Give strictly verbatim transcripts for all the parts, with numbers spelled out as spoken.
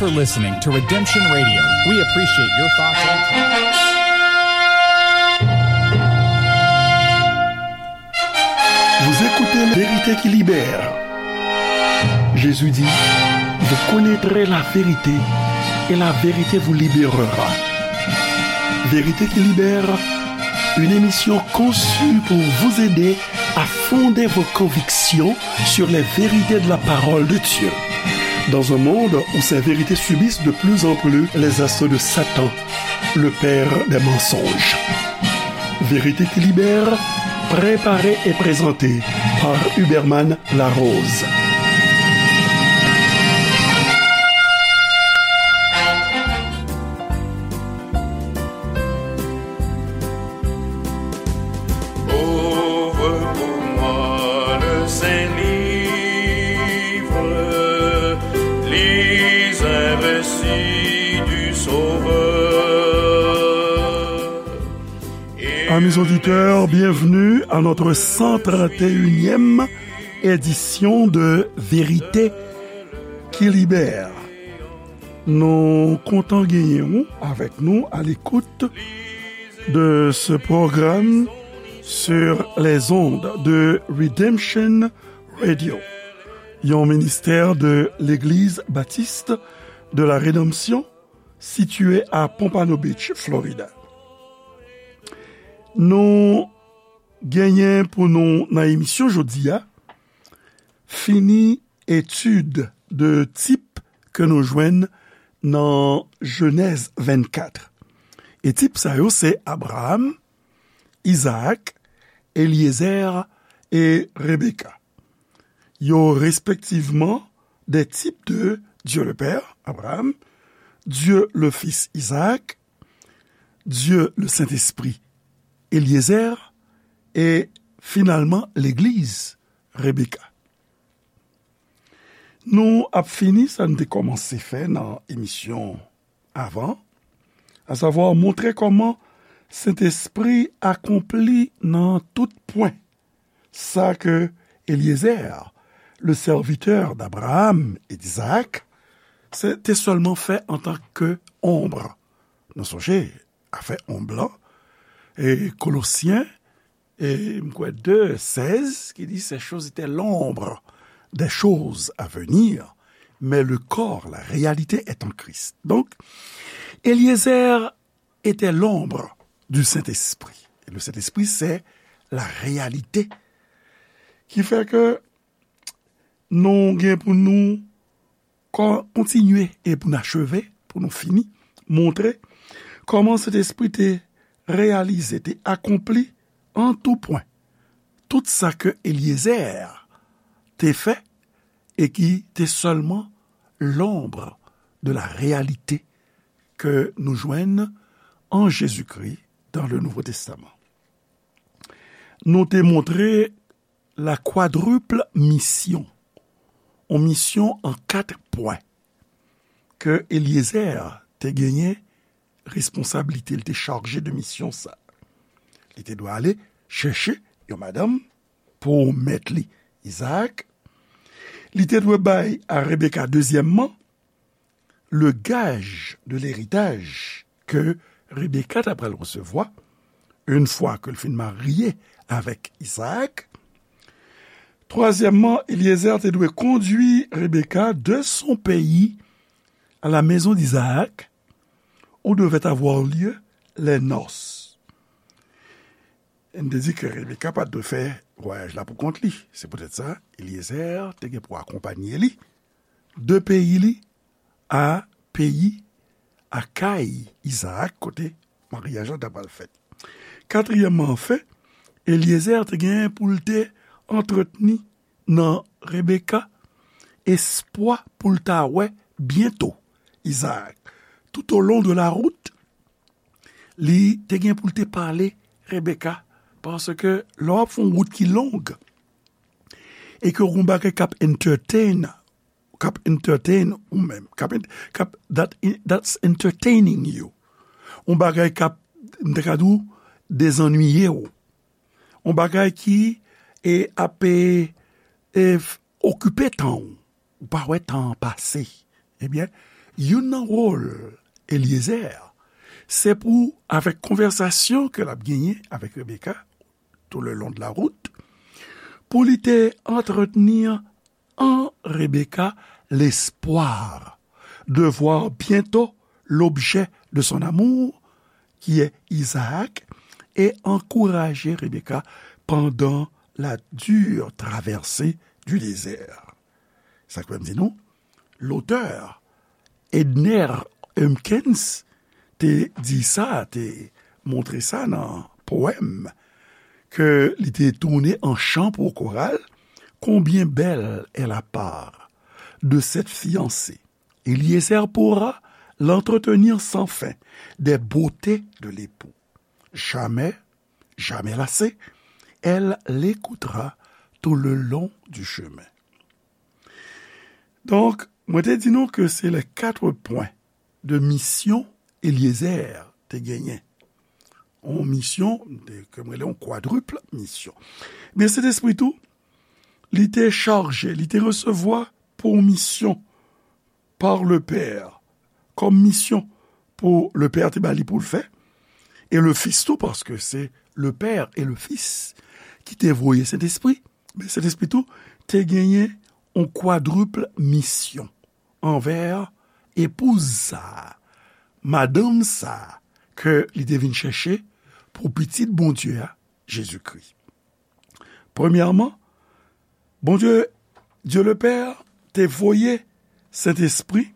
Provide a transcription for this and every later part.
for listening to Redemption Radio. We appreciate your thoughtful. Vous écoutez La Vérité qui libère. Jésus dit, vous connaîtrez la vérité et la vérité vous libérera. Vérité qui libère, une émission conçue pour vous aider à fonder vos convictions sur les vérités de la parole de Dieu. Dans un monde où ces vérités subissent de plus en plus les assauts de Satan, le père des mensonges. Vérité qui libère, préparée et présentée par Huberman Larose. Ouvre pour moi le saint livre, lis un récit du Sauveur. Amis auditeurs, bienvenue à notre cent trente et unième édition de Vérité qui libère. Nou kontan genyen w avèk nou à l'écoute de ce programme sur les ondes de Redemption Radio, yon ministère de l'Église Baptiste de la Rédemption, située à Pompano Beach, Florida. Nou genyen pou nou nan emisyon jodi a, fini etid de tip ke nou jwenn nan Jenèz vennkat. E tip sa yo se Abraham, Izaak, Elyezer e Rebeka. Yo respektivman des types de Dieu le Père, Abraham, Dieu le Fils, Isaac, Dieu le Saint-Esprit, Eliezer, e finalman legliz, Rebeka. Nou ap fini sa n te kòmanse fè nan emisyon avan, asavwa montre kòman Sentespri akonpli nan tout pwen sa ke Eliezer, le serviteur d'Abraham et d'Isaac, se, te sèlman fè antanke onb. Nou sonje afè onb lan, e Kolosyen, e m kwè de sèz, ki di, ces choses étaient l'ombre des choses à venir, mais le corps, la réalité est en Christ. Donc, Eliezer était l'ombre du Saint-Esprit. Et le Saint-Esprit, c'est la réalité. Ki fè ke nou gen pou nou kon-, kontinye e pou n acheve, pou nou fini, montre kòman Sentespri te reyalize, te akonpli an tou pwen tout sa ke Eliezer te fè e ki te sèlman l'ombre de la réalité ke nou jwenn an Jezikri dans le Nouveau Testament. Nou te montre la quadruple mission, yon misyon an kat pwen, ke Eliezer te genyen responsablite, li te chaje de misyon sa. Li te dwe ale chèche yon madanm pou mèt li, Izaak. Li te dwe bay a Rebeka, dezyèmman, le gage de l'héritage ke Rebeka ta pral resevwa, une fois ke l fin marye avèk Izaak. Twazyèmman, Eliezer te dwe kondui Rebeka de son pays à la maison d'Isaac, où devaient avoir lieu les noces. N te di ke Rebeka pa t dwe fè vwayaj la pou kont li. Se poutèt sa, Eliezer te gen pou akonpanye li de peyi li a peyi, a kay Izaak, kote maryaj la ta pral fèt. Katriyèmman, anfen, Eliezer te gen pou l te antretni nan Rebeka espwa pou l ta wè byento Izaak. Tout au long de la route, li te gen pou l te pale Rebeka, paske lè w ap fè yon wout ki long, e ke w gen yon bagay k ap entertain, k ap entertain ou menm, k ap, k ap, that, that's entertaining you. Yon bagay k ap, m te ka di w, dezannwiye w. Yon bagay ki, e, ap, e, e, f-, okipe tan w. Ou pa wè tan an pase. Ebyen, Youn nan wòl Eliezer, se pou, avèk konvèsasyon ke l ap genyen avèk Rebeka, tout le long de la route, pou li te antretni an Rebeka lespwa de voir bientôt l'objet de son amour, qui est Isaac, et encourager Rebecca pendant la dure traversée du désert. Sa k fè m di nou, lotè Edner Humpkins te di sa, te montre sa nan powèm ke li te tounen an chan pou koral, Combien belle est la part de cette fiancée. Eliezer pourra l'entretenir sans fin des beautés de l'époux. Jamais, jamais lassée, elle l'écoutera tout le long du chemin. Donk, mwen te di nou ke se les quatre points de mission Eliezer te genyen. Yon misyon, ke mwen rele yon kwadrip misyon. Men Sentespri tou, li te chaje, li te resevwa pou misyon par le Père, kòm misyon pou le Père te ba li pou l fè, e le Fils tou, paske se le Père et le Fils ki te voye Sentespri. Men Sentespri tou te genyen yon kwadrip misyon anvè epouz sa a, madanm sa a ke li te vin chèche pou Pitit Bondye a, Jezikri. Premyèman, Bondye, Dye le Pè, te voye Sentespri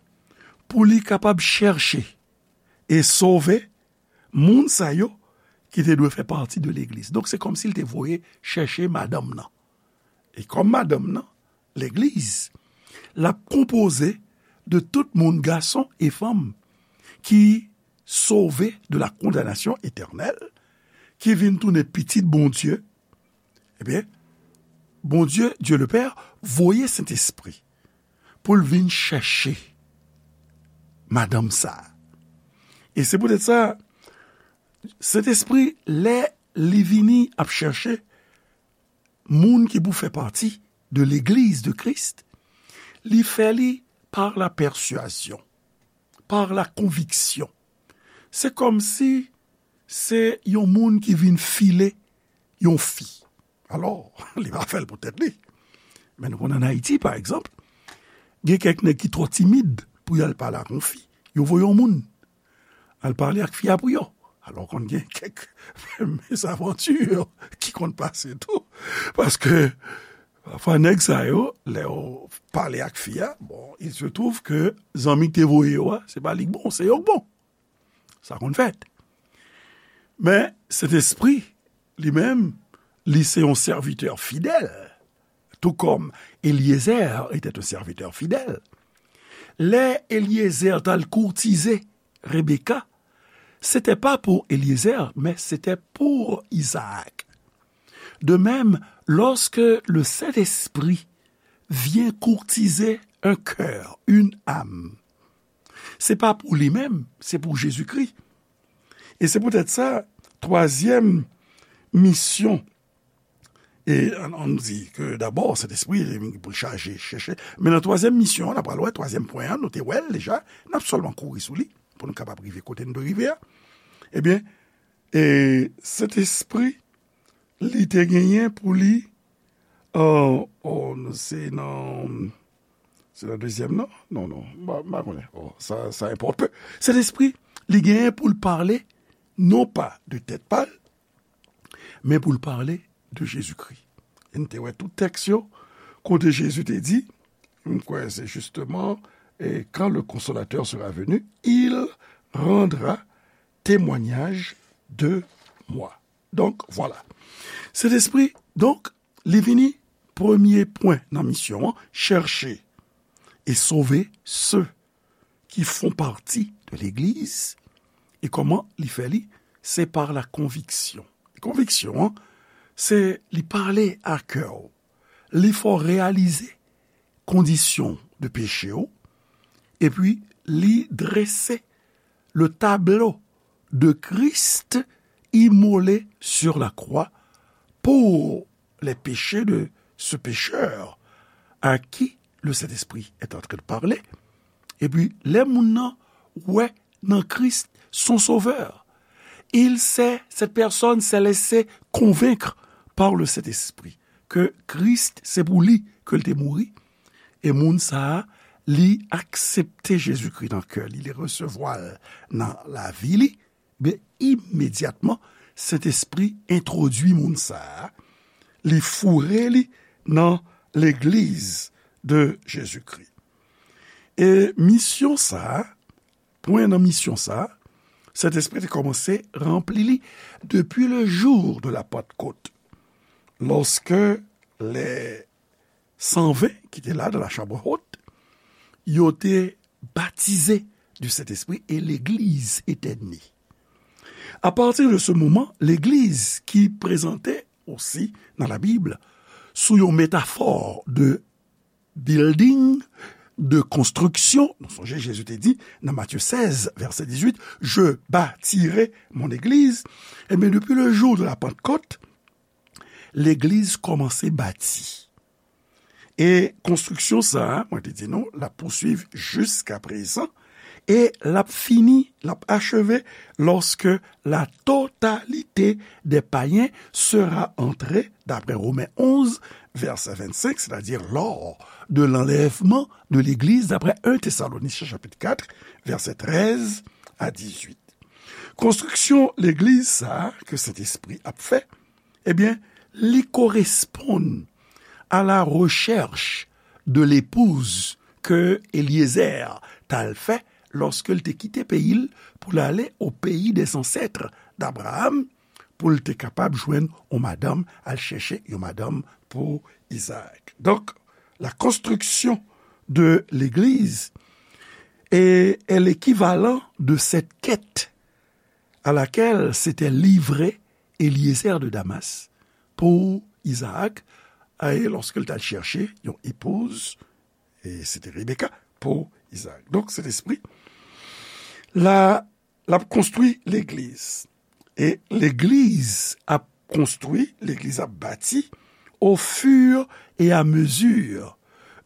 pou li kapab chèche e sove moun sa yo ki te dwe fè pati de legliz. Donk, se kòmsi l te voye chèche madanm nan. E kòm madanm nan, legliz, l ap konpoze de tout moun, gason e fanm, ki sove de la kondanasyon etènèl, ki vin tounen pitit Bondye, ebyen, Bondye, Dye le Pè, voye Sentespri pou l vin chèche madanm sa a. E se poutèt sa, Sentespri, lè li vini ap chèche moun ki pou fè pati de legliz de Kris, li fè li par la pèswazyon, par la konviksyon. Se kòmsi se yon moun ki vin file yon fi. Alò, li pa fè l pou tèt li. Men nou konn ann Ayiti, pa egzanp, gen kèk nèg ki twò timid pou y al pale ak yon fi. Yo voye yon moun al pale ak fi a pou yo. Alò, konn gen kèk mezavanti ki konn pase tou. Paske, pafwa, nèg sa yo, lè yo pale ak fi a, bon, il se trouve que zanmi ki te voye yo a, se pa li k bon, se yo k bon. Sa konn fèt. Men, Sentespri, li menm, li se yon sèvitè fidèl, tout comme Eliezer était un serviteur fidèle. Lè Eliezer t al kourtize Rebecca, c'était pas pour Eliezer, mais c'était pour Isaac. De même, lorsque le Saint-Esprit vient courtiser un cœur, une âme, se pa pou li menm, se pou Jezikri. E se poutèt sa, twazyèm misyon, e ann, ann di ke dabò, Sentespri, li pou l chaje, chèche. Men nan twazyèm misyon an, n ap pral wè, twazyèm pwen an, nou te wè l deja, n ap sèlman kouri sou li, pou nou kapab rive kote n dwe rive a. Ebyen, e Sentespri, li te genyen pou li, oh, oh, se nan, se nan dezyèm, non? Non, non, m pa, m pa konnen. Oh, sa, sa enpòte pe. Sentespri, li genyen pou l pale, non pa de tèt pa l, men pou l pale de Jezikri. E n te wè tout tèks yo, kote Jezi te di, m kwè se justement, et quand le Consolateur sera venu, il rendra témoignage de moi. Donk, vwala. Sentespri, donk, li vini premye pwen nan misyon an, chèche e sove se ki font pati de legliz. E kòman li fè li? Se par la konviksyon. Konviksyon an, se li pale a kè w, li fè w reyalize kondisyon de peche w, epi li drese le tableau de Christ immolé sur la croix pour les péchés de ce pécheur à qui le Saint-Esprit est en train de parler. Epi, lè moun nan wè nan Kris son sovè, il sait, cette personne s'est laissée convaincre par le Saint-Esprit ke Kris se pou li ke l te mouri, e moun sa a, li aksepte Jezikri nan kè li, li resevwa l nan lavi li, ben, imedyatman, Sentespri entwodui moun sa a, li foure li nan legliz de Jezikri. E misyon sa a, pwen nan misyon sa a, Sentespri te kòmanse ranpli li depi le jou de la Pantkot, lòske lè san ven ki te la nan la chambre haute, yo te batize du Sentespri e legliz te ne. A partir de ce moment, legliz ki prezante osi nan Labib sou yon metafò de building, de konstriksyon. Nou sonje Jezi te di nan Matye sèz, vèsè dizuit, je bâtirai mon église. Ebyen, depi le jou de la Pantkot, legliz kòmanse bati. E konstriksyon sa a, mwen te di nou, l ap pouswiv jiska prezan, e l ap fini, l ap acheve lorsque la totalité des païens sera entrée, d'après Romains onze, verset vingt-cinq, c'est-à-dire lors de l'enlèvement de l'Église, d'après un Thessaloniciens chapitre quatre, verset treize à dix-huit. Konstriksyon legliz sa a ke Sentespri ap fè, ebyen, li koresponn à la recherche de l'épouse ke Eliezer t al fè lòske l te kite peyi l pou l ale au pays des ancêtres d'Abraham, pou l te kapab jwenn yon madanm, al chèche yon madanm pou Izaak. Donk, la construction de l'église est, est l'équivalent de cette quête à laquelle s'était livré Eliezer de Damas pour Isaac, e lòske l t al chèche yon epouz, e se te Rebeka, pou Isaac. Donk, Sentespri, la, l ap konstwi legliz. E legliz ap konstwi, legliz ap bati au fur et à mesure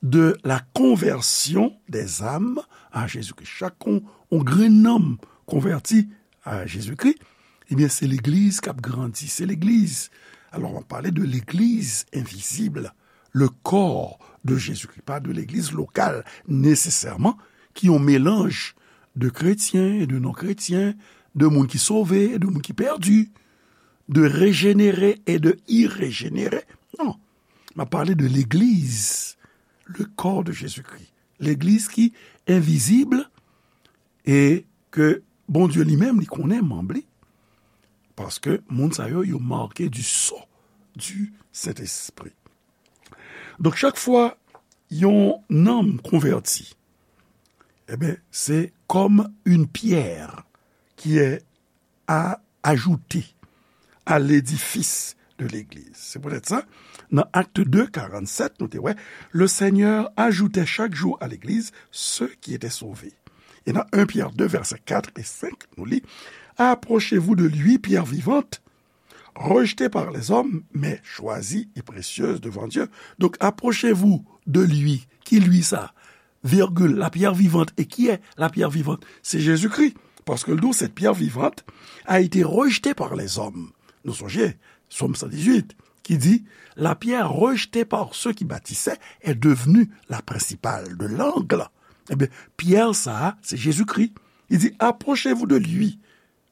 de la conversion des âmes à Jésus-Christ. Chak yon, yon grenn nanm konvèti a Jezikri, ebyen, se legliz k ap grandi, se legliz. Alò, m ap pale de legliz envizib, le corps de Jésus-Christ, pa de legliz lokal nesesèman, ki yon melanj de kretyen e de non-kretyen, de moun ki sove e de moun ki pèdi, de rejenere e de irejenere. Non, m ap pale de legliz, le corps de Jésus-Christ. Legliz ki envizib e ke Bondye li menm li konnen manm li, paske moun sa yo, yo make du sceau du Saint-Esprit. Donk, chak fwa yon nanm konvèti, ebyen, se comme une pierre qui est à ajouter à l'édifice de l'église. Se poutèt sa, nan Actes deux, quarante-sept, nou te wè, le Seigneur ajoutait chaque jour à l'église ceux qui étaient sauvés. E nan un Pierre deux, verset quatre et cinq, nou li, approchez-vous de lui, pierre vivante, rejetée par les hommes, mais choisie et précieuse devant Dieu. Donc, approchez-vous de lui. Ki lui sa? Virgule, la pierre vivante. Et qui est la pierre vivante? C'est Jésus-Christ. Parce que le dos, cette pierre vivante a été rejetée par les hommes. Nou sonje, Sòm san dizuit, ki di, la pierre rejetée par ceux qui bâtissaient est devenue la principale de l'angle. Ebyen, pyè sa a, se Jezikri. Li di, approchez-vous de lui,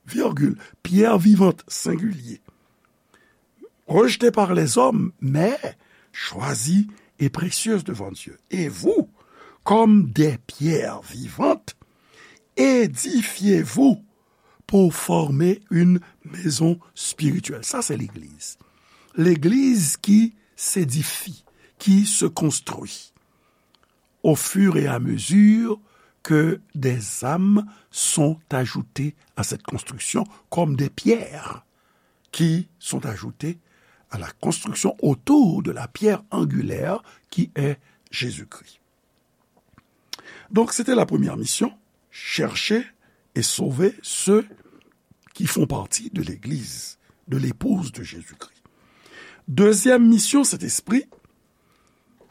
virgule, pierre vivante, singulier, rejetée par les hommes, mais choisie et précieuse devant Dieu. Et vous, comme des pierres vivantes, édifiez-vous pour former une maison spirituelle. Sa, se legliz. Legliz ki s'édifie, qui se construit au fur et à mesure que des âmes sont ajoutées à cette construction comme des pierres qui sont ajoutées à la construction autour de la pierre angulaire qui est Jésus-Christ. Donc, c'était la première mission, chercher et sauver ceux qui font partie de l'Église, de l'épouse de Jésus-Christ. Deuxième mission, Sentespri,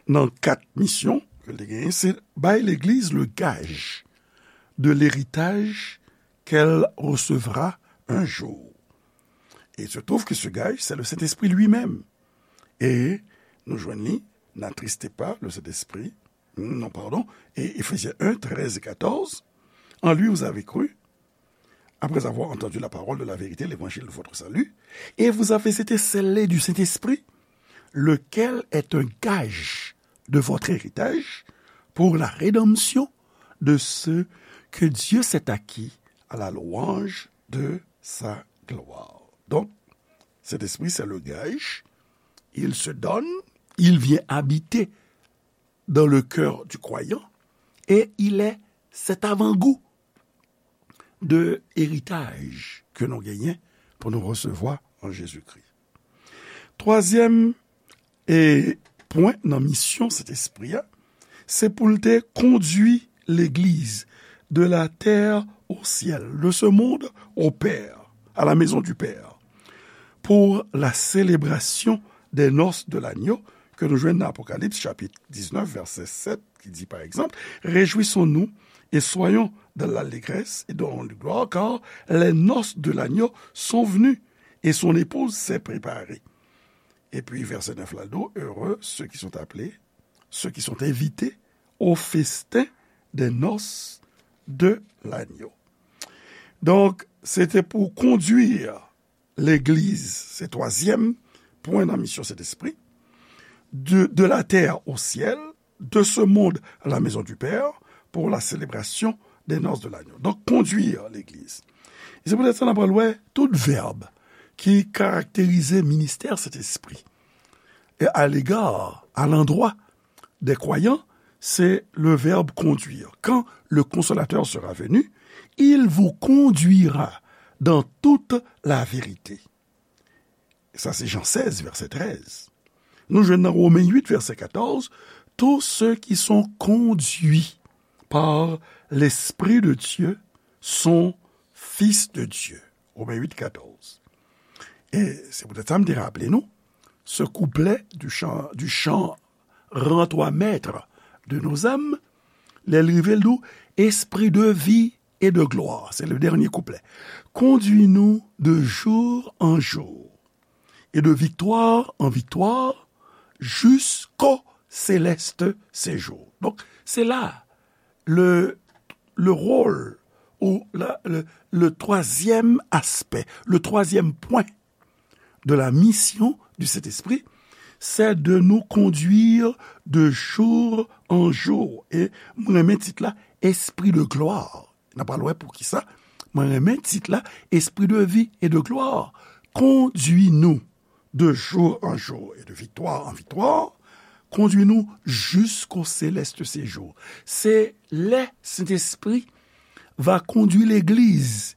nan kat misyon, ke l te genyen, se bay legliz le gage de l'héritage qu'elle recevra un jour. Et il se trouve que ce gage, c'est le Saint-Esprit lui-même. Et nou jwenn li, n'attristez pas le Saint-Esprit, non, pardon, et Éphésiens un, treize et quatorze, en lui vous avez cru, après avoir entendu la parole de la vérité, l'évangile de votre salut, et vous avez été scellés du Saint-Esprit, lequel est un gage de votre héritage pour la rédemption de ceux que Dieu s'est acquis à la louange de sa gloire. Donc, cet esprit, c'est le gage. Il se donne, il vient habiter dans le cœur du croyant et il est cet avant-goût de eritaj ke nou genyen pou nou resevwa an Jezikri. Twazyèm e pwen nan misyon Sentespri a, se pou l te kondui legliz de la terre au ciel, de ce monde au Père, à la maison du Père, pour la célébration des noces de l'agneau, ke nou jwenn nan Apokalips chapit diznèf, vèsè sèt, ki di, pa egzanp, Réjouissons-nous et soyons dans l'allégresse et donnons-lui gloire, car les noces de l'agneau sont venues et son épouse s'est préparée. Epi vèsè nèf la di, Heureux ceux qui sont appelés, ceux qui sont invités au festin des noces de l'agneau. Donk, se te pou kondui legliz, se twazyèm pwen nan misyon Sentespri, de, de la terre au ciel, de ce monde à la maison du Père, pour la célébration des noces de l'agneau. Donk, kondui legliz. E se poutèt sa n ap pral wè tout vèb ki karakterize ministè Sentespri. Et à l'égard, à l'endroit des croyants, c'est le verbe conduire. Quand le Consolateur sera venu, il vous conduira dans toute la vérité. Sa se Jan sèz, vèsè trèz. Nou jwenn nan Women uit, vèsè katòz, Tous ceux qui sont conduits par l'Esprit de Dieu sont fils de Dieu. Women uit, katòz. E se poutèt sa m te raple nou, ce couplet du chant, du chant Rends-toi maître de nos âmes, lè l rive, l di w, Esprit de vie et de gloire, c'est le dernier couplet. Conduis-nous de jour en jour, et de victoire en victoire, jusqu'au céleste séjour. Donk, se la, le, le rôle ou la, le, le troisième aspect, le troisième point de la mission du Saint-Esprit, c'est de nous conduire de jour en jour. E mwen renmen tit la, Esprit de gloire. N ap pral wè poukisa mwen renmen tit la, Esprit de vie et de gloire. Conduis-nous de jour en jour et de victoire en victoire. Conduis-nous jusqu'au céleste séjour. Se lè Sentespri va kondui legliz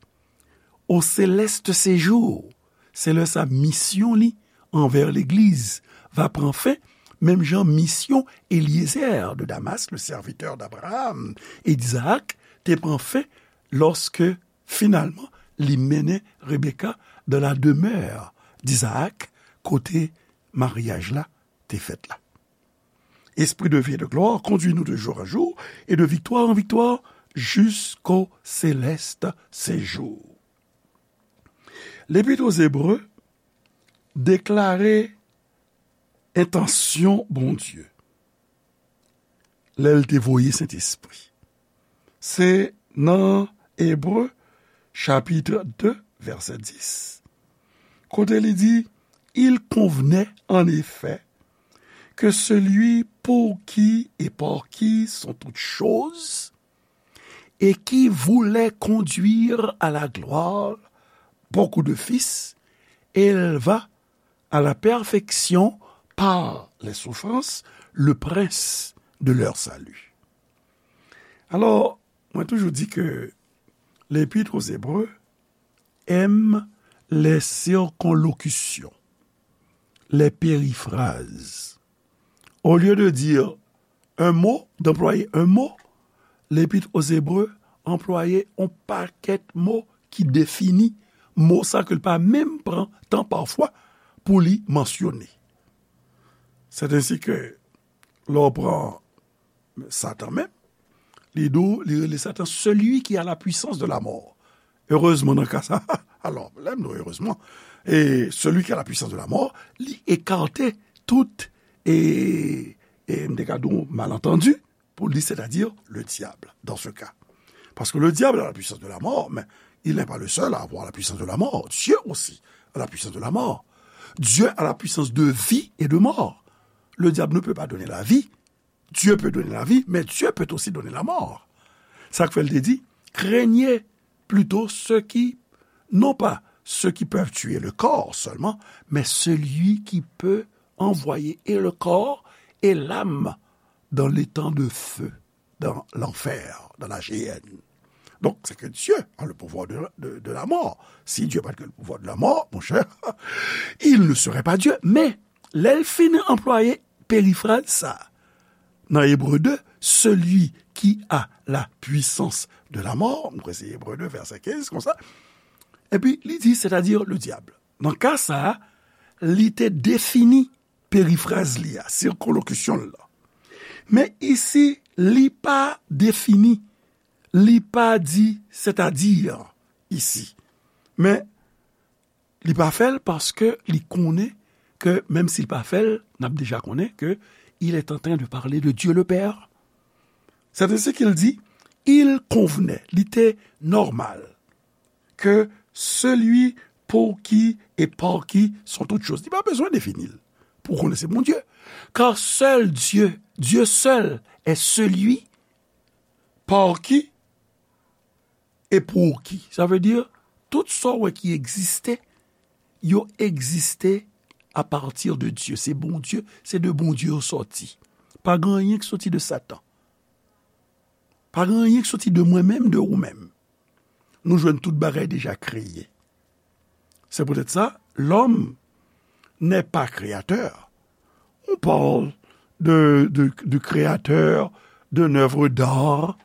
au céleste séjour. Se lè sa misyon li anvè legliz va pran fen, menm jan misyon Eliezer de Damas, le serviteur d'Abraham et d'Isaac, te pran fen lòske finalman li mennen Rebeka dans la demeure d'Isaac, kote maryaj la te fèt la. Esprit de vie et de gloire, conduis-nous de jour en jour et de victoire en victoire jusqu'au céleste séjour. Lepit aux Hébreux deklare entansyon Bondye lè l te voye Sentespri. Se nan Ebre, chapit de, vèsè dis, kote li di, Il convenait en effet que celui pour qui et par qui sont toutes choses, et qui voulait conduire à la gloire beaucoup de fils, éleva à la perfection par les souffrances le prince de leur salut. Alò, mwen toujou di ke Lepit aux Hébreux aime les circonlocutions, les périphrases. Au lieu de dire un mot, d'employer un mot, Lepit aux Hébreux anplwaye yon pakèt mo ki defini mo sa ke l pa menm pran tan pafwa pou li mansyone. C'est ainsi que lè w pran Satan menm, li di w, li rele Satan celui qui a la puissance de la mort. Erezman, nan ka sa, alò, lè m di w erezman, e celui qui a la puissance de la mort, li ekate tout, e, e m te ka di w malantandi, pou li, c'est-à-dire le diable, dans ce cas. Parce que le diable a la puissance de la mort, mais il n'est pas le seul à avoir la puissance de la mort. Dieu aussi a la puissance de la mort. Dieu a la puissance de vie et de mort. Le diable ne peut pas donner la vie. Dieu peut donner la vie, mais Dieu peut aussi donner la mort. Sa k fè l te di, craignez plutôt ceux qui, non pas ceux qui peuvent tuer le corps seulement, mais celui qui peut envoyer et le corps et l'âme dans l'étang de feu, dans l'enfer, dans la géhenne. Donc, c'est que Dieu a le pouvoir de, de, de la mort. Si Dieu n'a pas le pouvoir de la mort, mon cher, il ne serait pas Dieu. Men, lè l fin anplwaye perifraz sa, nan Ebre de, celui qui a la puissance de la mort, nou kwè se Ebre de, vèsè kenz, konsa. Epi, li di, c'est-à-dire le diable. Nan ka sa a, li te defini perifraz li a, sikonlokisyon l lan. Men isi, li pa defini, li pa di, c'est-à-dire, isi. Men, li pa fè l paske li konnen ke, menm si l pa fè l, n ap deja konnen ke il est en train de parler de Dieu le Père. C'est ainsi qu'il dit, il convenait, li te nòmal, que celui pour qui et par qui sont toutes choses. Li pa bezwen defini l pou konnen se Bondye. Car seul Dieu, Dieu seul est celui par qui et pour qui. Sa vle di, tout sa w wè ki egziste, yo egziste à partir de Dieu. Se Bondye, se de Bondye yo sòti. Pa gen anyen ki soti de Satan. Pa gen anyen ki soti de mwen menm, de ou menm. Nou jwenn tout bagay deja kreye. C'est peut-être ça, l'homme n'est pas créateur. On parle de, de, de créateur, d'une œuvre d'art,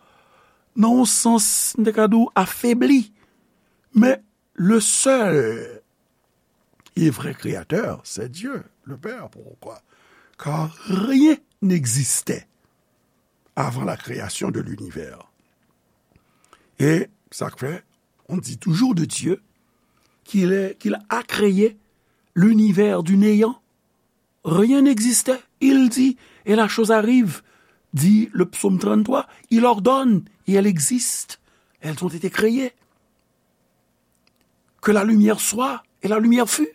nan yon sans, m te ka di w, afebli. Men le seul et vrai créateur, c'est Dieu, le Père. Pourquoi? Car rien n'existait avant la création de l'univers. Et ça fait, on dit toujours de Dieu qu'il est, qu'il a créé l'univers du néant. Rien n'existait. Il dit, et la chose arrive, dit le psaume trente-trois, il ordonne, et elle existe. Elles ont été créées. Que la lumière soit, et la lumière fut.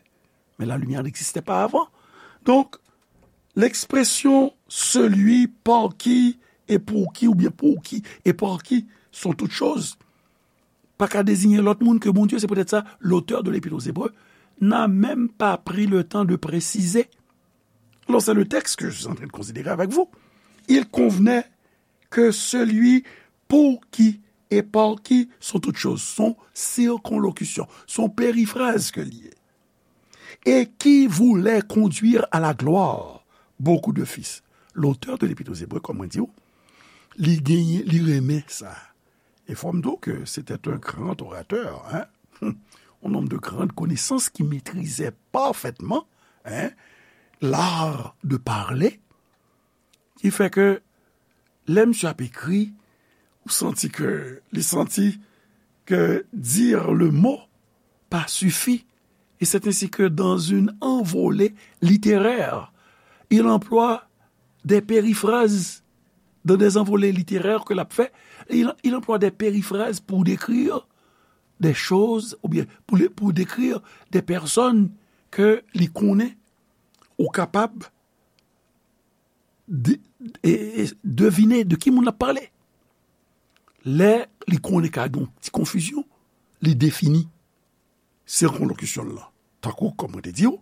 Mais la lumière n'existait pas avant. Donc, l'expression celui par qui et pour qui, ou bien pour qui et par qui sont toutes choses, pa ka désigner lòt moun ke Bondye. C'est peut-être ça, l'auteur de l'Épître aux Hébreux n'a même pas pris le temps de préciser. Alors, c'est le texte que je suis en train de considérer avec vous. Il convenait que celui pour qui et par qui sont toutes choses, son circonlocution, son périphrase ke li ye, et qui voulait conduire à la gloire beaucoup de fils. L'auteur de l'Épître aux Hébreux, kòm mwen di w, li genyen, li renmen sa. E fò m di w ke c'était un grand orateur, hein? Un homme de grande connaissance qui maîtrisait parfaitement, hein, l'art de parler, ki fè ke lè misye ap ekri, ou santi ke, li santi que dire le mot pas suffit. Et c'est ainsi que dans une envolée littéraire, il emploie des périphrases. Dans des envolées littéraires ke l ap fè, il, il emploie des périphrases pour décrire des choses, ou bien pour, pour décrire des personnes ke li konnen, ou kapab de, e, e, devine de ki moun l ap pale. Lè li konnen ka gen yon ti konfizyon, li defini sikonlokisyon l lan. Tankou, kòm mwen te di w,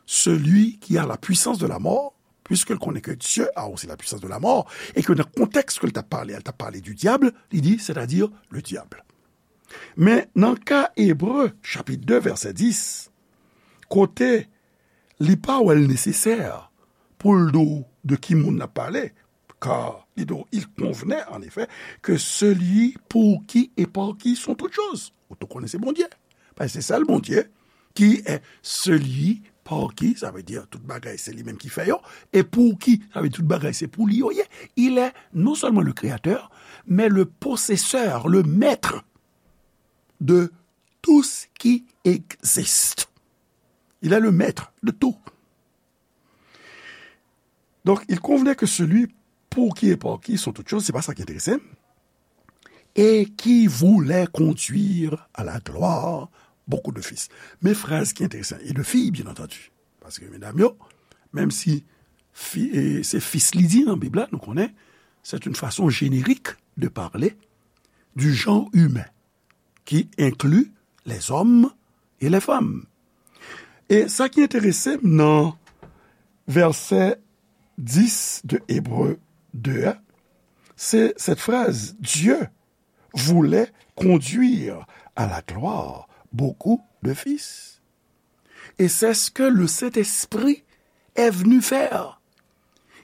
celui qui a la puissance de la mort, puisque l konnen ke Dieu a aussi la puissance de la mort, e ke nan kontèks ke l t ap pale a, l t ap pale du diable, li di, c'est-à-dire le diable. Men nan ka Ebre, chapit de, vèsè dis, kote li pa wè l nesesè pou l di w de ki moun l ap pale, car li di w, il convenait en effet que celui pour qui et par qui sont toutes choses. Ou tou konnen se Bondye. Paske se sèl Bondye qui est celui par qui, sa vle di tout bagay se li menm ki fè yo, et pour qui, sa vle di tout bagay se pou li yo ye. Il est non seulement le créateur, mais le possesseur, le maître de tout ce qui existe. Il est le maître de tout. Donc, il convenait que celui pour qui et par qui sont toutes choses, c'est pas ça qui intéressait, et qui voulait conduire à la gloire beaucoup de fils. Men fraz ki enteresan, et de filles, bien entendu. Paske medam yo, menm si fi, e, se fis li di nan Bib la, nou konnen, c'est une façon générique de parler du genre humain qui inclut les hommes et les femmes. E sa ki enterese m nan vèsè dis de Ebre de a, se cette phrase, Dieu voulait conduire à la gloire beaucoup de fils. Et c'est ce que le Saint-Esprit est venu faire.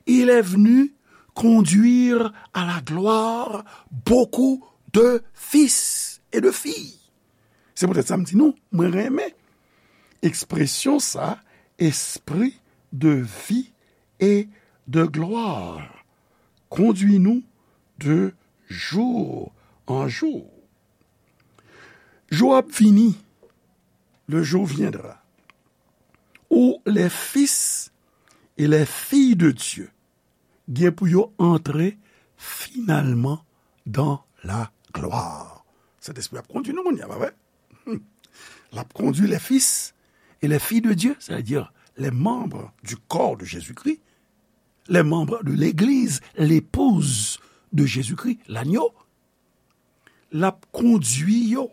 Il est venu conduire à la gloire beaucoup de fils et de filles. Se poutèt sa m di nou, mwen renmen ekspresyon sa, esprit de vie et de gloire. Conduis-nous de jour en jour. Jou ap vini, le jour viendra, où les fils et les filles de Dieu gen pou yo antre finalman dans la gloire. Sentespri ap kondui nou kounye a, pa vre? L ap kondui les fils et les filles de Dieu, c'est-à-dire les membres du corps de Jésus-Christ, les membres de l'église, l'épouse de Jésus-Christ, l'agneau. L ap kondui yo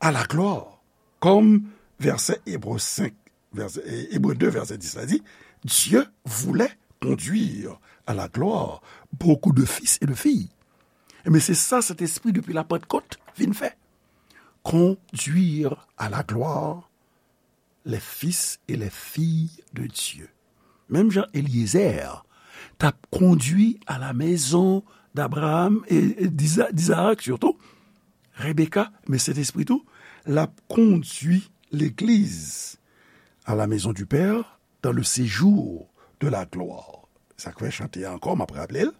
à la gloire. Comme verset Hébreux cinq, verset, Hébreux deux, verset dix la di, Dieu voulait conduire à la gloire beaucoup de fils et de filles. Ebyen, se sa Sentespri depi Lapantkòt vin fè. Conduire à la gloire les fils et les filles de Dieu. Menm jan Eliezer t ap kondui à la maison d'Abraham et, et d'Isa-, d'Isaac surtout, Rebecca, men Sentespri tou, l ap kondui legliz à la maison du Père dans le séjour de la gloire. Sa k fè chante a ankò, m ap raple l,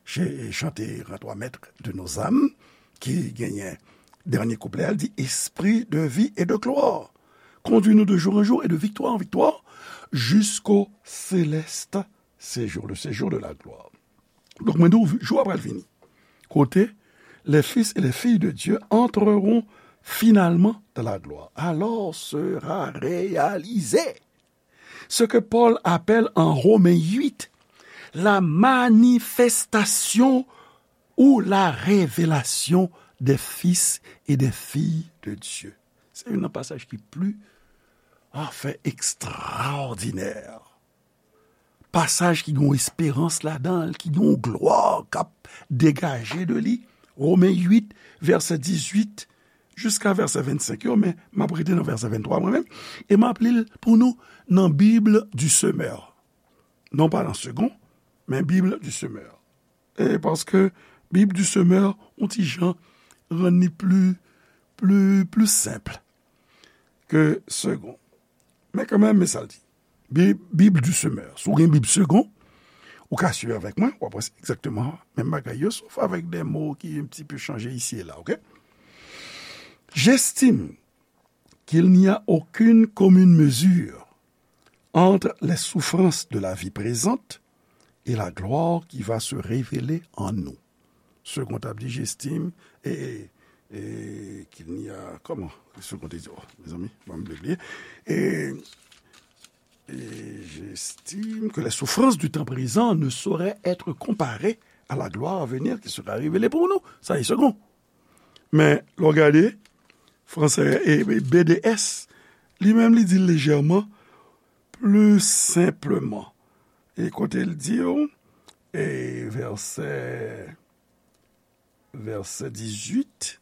se chante Rends-toi maître de nos âmes, ki genyen dènye kouplè a, l di, Esprit de vie et de gloire, conduis-nous de jour en jour et de victoire en victoire jusqu'au céleste séjour, le séjour de la gloire. Donk, mwen di w, jou a pral vini. Kote, les fils et les filles de Dieu entreront finalement dans la gloire. Alors sera réalisé ce que Paul appelle en Romains huit la manifestation ou la révélation des fils et des filles de Dieu. Se youn nan pasaj ki pli, anfen, ekstraòdinè. Pasaj ki gen yon esperans ladan l, ki gen yon glwa k ap degaje de li. Romen uit, vèsè dizuit jiska vèsè vennsenk yo, men m ap rete nan vèsè venntwa mwen menm, e m ap li l pou nou nan Bible du Semeur. Non pa nan Segond, men Bible du Semeur. E paske Bible du Semeur, yon ti jan rann li pli, pli, pli senp ke Segond. Men kanmenm, men sa l di. Bib, Bible du Semeur. Si w gen Bib Segond, ou ka swiv avèk mwen, w ap wè se egzakteman menm bagay yo, sof avèk de mo ki un petit peu chanje isi e la, oke? J'estime qu'il n'y a aucune commune mesure entre les souffrances de la vie présente et la gloire qui va se révéler en nous. Segond ap di, j'estime, e, e, e, qu'il n'y a, kòman? Segond te di, oh, mezanmi, ban m bliye. E, et j'estime que les souffrances du temps présent ne sauraient être comparées à la gloire à venir qui sera révélée pour nous. Sa e Segond. Men, lè w gade, fransè, e, e, B D S, li menm, li di l lejèman, pli senpleman. E kote l di w, e vèsè, vèsè dizuit,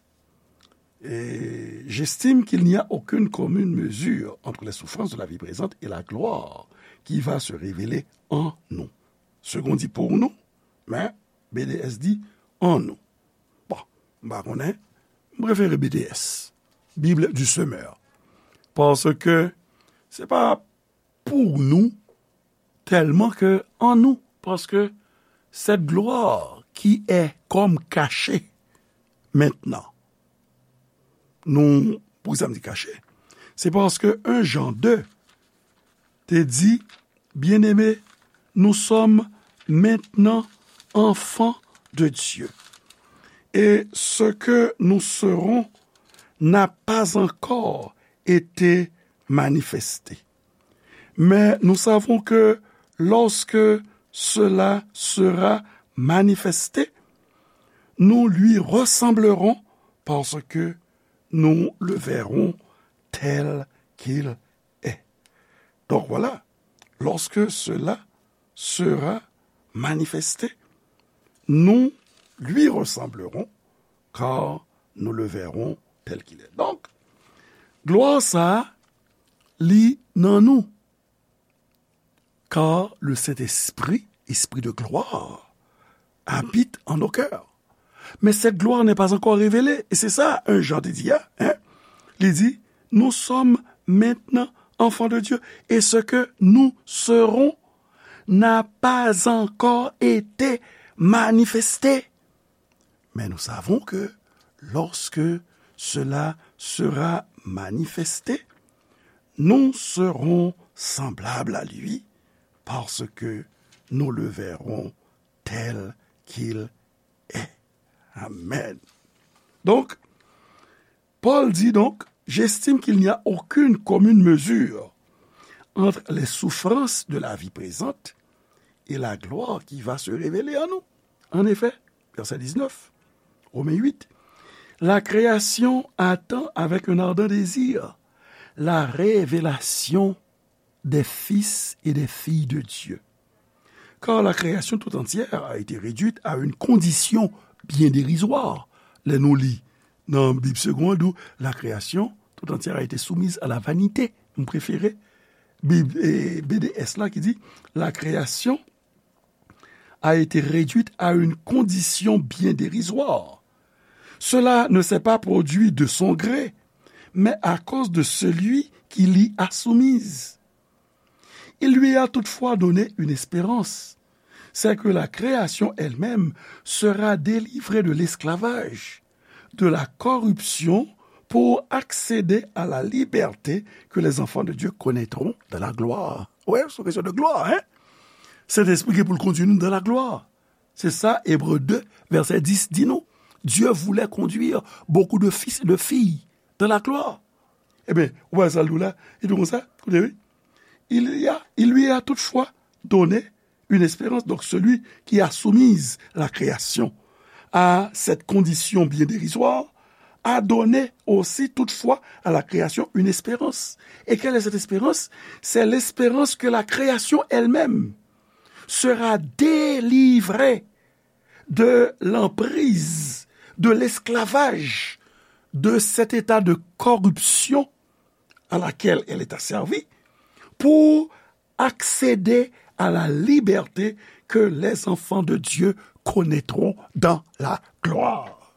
et j'estime qu'il n'y a aucune commune mesure entre les souffrances de la vie présente et la gloire qui va se révéler en nous. Segond di pour nous, men B D S di en nous. Bon, m pa konnen, m prefere B D S, Bible du Semeur. Paske Se pa pou nou tèlman ke an nou, paske cette gloire qui est comme cachée maintenant. Nou, poukisa m di kache? Se paske un Jean deux te di, Bien-aimés, nous sommes maintenant enfants de Dieu. Et ce que nous serons n'a pas encore été manifesté. Mais nous savons que lorsque cela sera manifesté, nous lui ressemblerons parce que nous le verrons tel qu'il est. Donc voilà, lorsque cela sera manifesté, nous lui ressemblerons, car nous le verrons tel qu'il est. Donk, glwa sa a, li nan nou. Car le Saint-Esprit, Esprit de gloire, habite en nos cœurs. Mais cette gloire n'est pas encore révélée. Et c'est ça, un Jean te di, hein? Li di, nous sommes maintenant enfants de Dieu. Et ce que nous serons n'a pas encore été manifesté. Mais nous savons que lorsque cela sera manifesté, nous serons semblables à lui, parce que nous le verrons tel qu'il est. Amen. Donc, Paul dit donc, j'estime qu'il n'y a aucune commune mesure entre les souffrances de la vie présente et la gloire qui va se révéler en nous. En effet, verset dix-neuf, Romains huit, la création attend avec un ardent désir la révélation des fils et des filles de Dieu. Car la création tout entière a été réduite à une condition bien dérisoire. Lè nou li nan Bib Segond, ou la création tout entière a été soumise à la vanité. M prefere Bib, eh, B D S la ki di, la création a été réduite à une condition bien dérisoire. Cela ne s'est pas produit de son gré, mais à cause de celui qui l'y a soumise. Il lui a toutefois donné une espérance, c'est que la création elle-même sera délivrée de l'esclavage, de la corruption, pour accéder à la liberté que les enfants de Dieu connaîtront dans la gloire. Wè, se yon kesyon de glwa, hein? Sentespri gen pou l kondui nou dans la gloire. Se sa, Ebre de, vèsè dis di nou. Dieu voulait conduire beaucoup de fils et de filles dans la gloire. Ebyen, ou wè sa l di w la? Li di w konsa, koute, wi. Il y a, il lui a toutefois donné une espérance. Donc, celui qui a soumis la création à cette condition bien dérisoire a donné aussi toutefois à la création une espérance. Et quelle est cette espérance? C'est l'espérance que la création elle-même sera délivrée de l'emprise, de l'esclavage, de cet état de corruption à laquelle elle est asservie, pour accéder à la liberté que les enfants de Dieu connaîtront dans la gloire.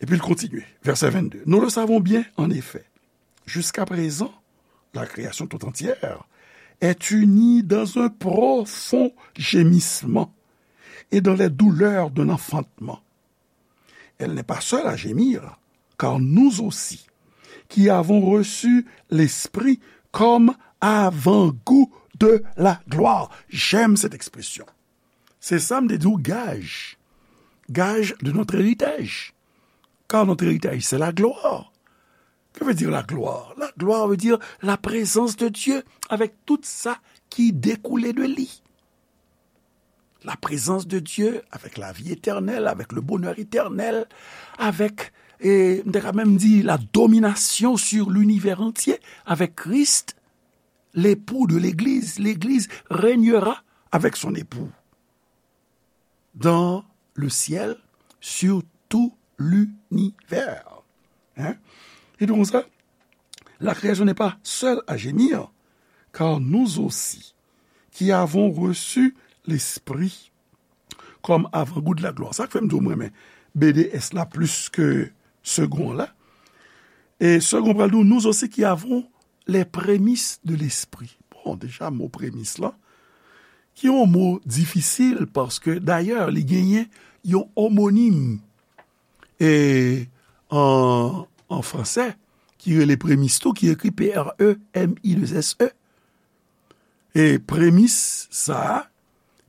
Et puis il continue, verset vingt-deux. Nous le savons bien, en effet, jusqu'à présent, la création tout entière est unie dans un profond gémissement et dans les douleurs d'un enfantement. Elle n'est pas seule à gémir, car nous aussi, qui avons reçu l'Esprit comme avant-goût de la gloire. J'aime cette expression. Se sa m te di w, gaj. Gage de notre héritage. Car notre héritage, c'est la gloire. Que veut dire la gloire? La gloire veut dire la présence de Dieu avec tout ça qui découlait de lui. La présence de Dieu avec la vie éternelle, avec le bonheur éternel, avec, et, m te ka menm di, la domination sur l'univers entier avec Christ, l'époux de l'Église. L'Église régnera avec son époux dans le ciel sur tout l'univers. Hein? Et donc ça, la création n'est pas seule à gémir, car nous aussi, qui avons reçu l'Esprit comme avant-goût de la gloire. Sa k fè m di w mwen renmen B D S la plis ke Segond la. E segon pral di w, nous aussi qui avons les prémices de l'esprit. Bon, deja, mo premis la, ki yon mo difisil, paske, dayè, li genyen yon omonim, e, an, an fransè, ki rele premis tou, ki ekri P R E M I deux S E. E premis sa a,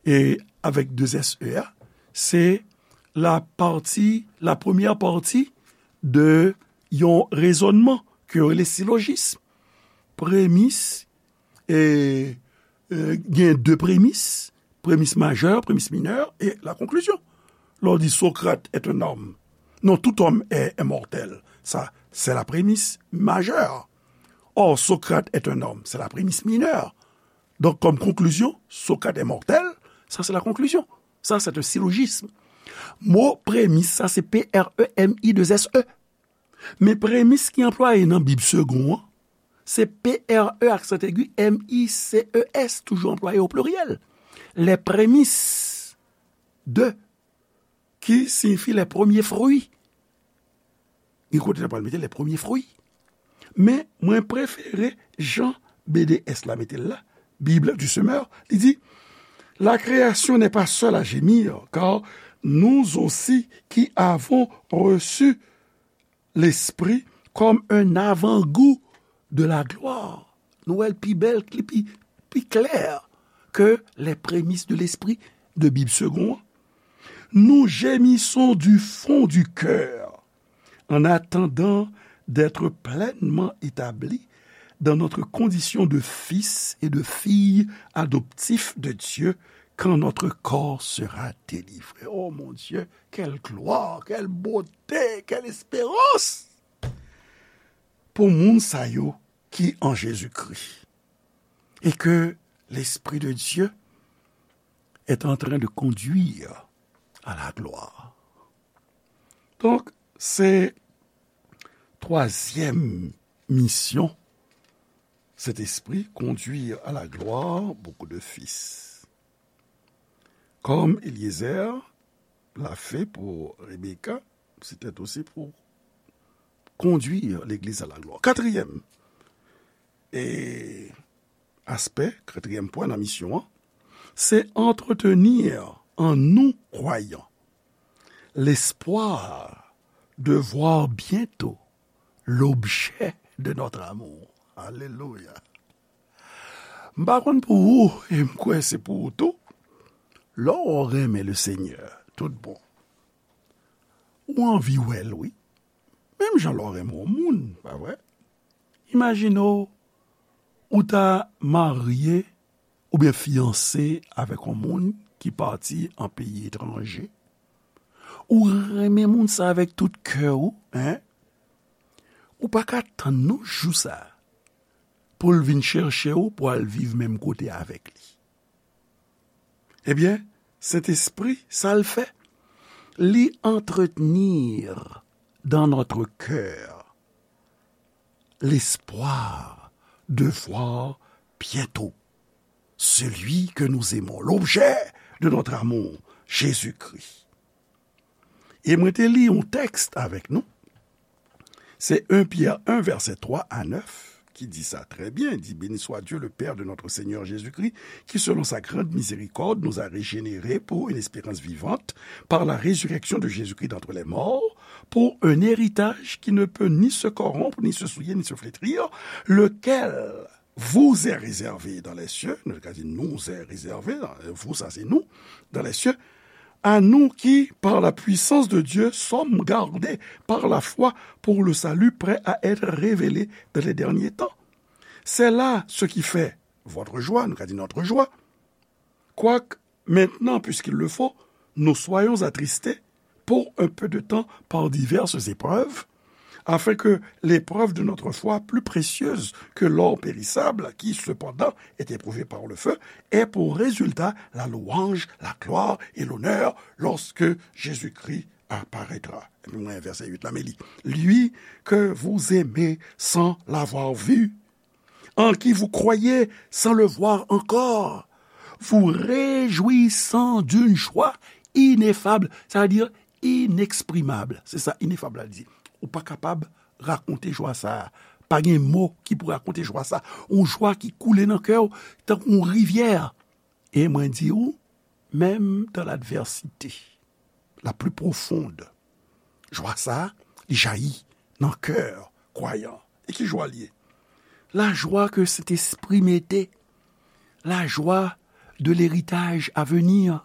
e avèk de S E a, se la pati, la premyè pati de yon rezònman ke yo rele silojism. Premis, e, e, gen de premis, premis majè, premis minè, e la konklizyon. Lè w di Socrate est un homme, non, tout homme est, est mortel. Ça, c'est la prémisse majeure. Or, Socrate est un homme, c'est la prémisse mineure. Donc, comme conclusion, Socrate est mortel, ça c'est la conclusion. Ça, c'est un syllogisme. Mo premis, sa se P R E M I deux S E. Men premis ki anplwaye nan Bib Segon an, se P R E aksan egi M I C E S, toujou anplwaye o pliryèl. Les prémices de, ki siyifi les premiers fruits. Gen kote n ap pral mete les premiers fruits. Men mwen prefere jan B D S la mete l la, Bible du Semeur, li di, la création n'est pas seule à gémir, car nous aussi qui avons reçu l'Esprit comme un avant-goût de la gloire. Nou wè l pi bèl, li pi, pi klè ke les prémices de l'Esprit de Bib Segon an. Nous gémissons du fond du cœur en attendant d'être pleinement établis dans notre condition de fils et de fille adoptifs de Dieu quand notre corps sera délivré. Oh mon Dieu, quelle gloire, quelle beauté, quelle espérance pour moun sa yo ki an Jezikri. Et que l'Esprit de Dieu est en train de conduire à la gloire. Donk, se twazyèm misyon Sentespri, conduire à la gloire beaucoup de fils. Comme Eliezer l'a fait pour Rebecca, c'était aussi pour conduire l'Église à la gloire. Katriyèm e aspè, katriyèm pwen nan misyon an, se entretenir en nous croyants l'espoir de voir bientôt l'objet de notre amour. Alelouya. M pa konn pou ou, e m kwè se pou ou tou. Lè w renmen le Senyè, tout bon, ou anvi wè l, wi. Menm jan lè w renmen yon moun, pa vre? Imajine w, ou ta marye oubyen fiyanse avèk yon moun ki pati an peyi etranje. Ou renmen moun sa avèk tout kè w, en? Ou pa ka tann non jou sa a pou l vin chèche w, pou al viv menm kote avèk li. Ebyen, Sentespri, sa l fè? Li entretenir dans notre cœur l'espoir de voir bientôt celui que nous aimons, l'objet de notre amour, Jésus-Christ. E mwen te li yon tèks avèk nou. Se en Pyè en, vèsè twa a nèf, ki di sa trè byen. Di, Béni soit Dieu, le Père de notre Seigneur Jésus-Christ, qui, selon sa grande miséricorde, nous a régénérés pour une espérance vivante par la résurrection de Jésus-Christ d'entre les morts, pour un héritage qui ne peut ni se corrompre, ni se souiller, ni se flétrir, lequel vous est réservé dans les cieux, nou ka di nous est réservé, vous, sa se nou, dans les cieux, à nous qui, par la puissance de Dieu, sommes gardés par la foi pour le salut prêt à être révélé dans les derniers temps. C'est là ce qui fait votre joie, nou ka di notre joie, quoique maintenant, puisqu'il le faut, nous soyons attristés pour un peu de temps par diverses épreuves, afin que l'épreuve de notre foi, plus précieuse que l'or périssable, qui cependant est éprouvé par le feu, ait pour résultat la louange, la gloire et l'honneur lorsque Jésus-Christ apparaîtra. Epi mwen, vèsè uit la, men li, Lui que vous aimez sans l'avoir vu, en qui vous croyez sans le voir encore, vous réjouissant d'une joie ineffable, c'est-à-dire inexprimable. Se sa inefab la di. Ou pa kapab rakonte jwa sa a. Pa gen mo ki pou rakonte jwa sa. Yon jwa ki koule nan kè w tankou yon rivyè. E mwen di w, menm dans l'adversité la plus profonde, jwa sa a, li jayi nan kè kwayan. E ki jwa l ye? La joie que Saint-Esprit mettait, la joie de l'héritage à venir,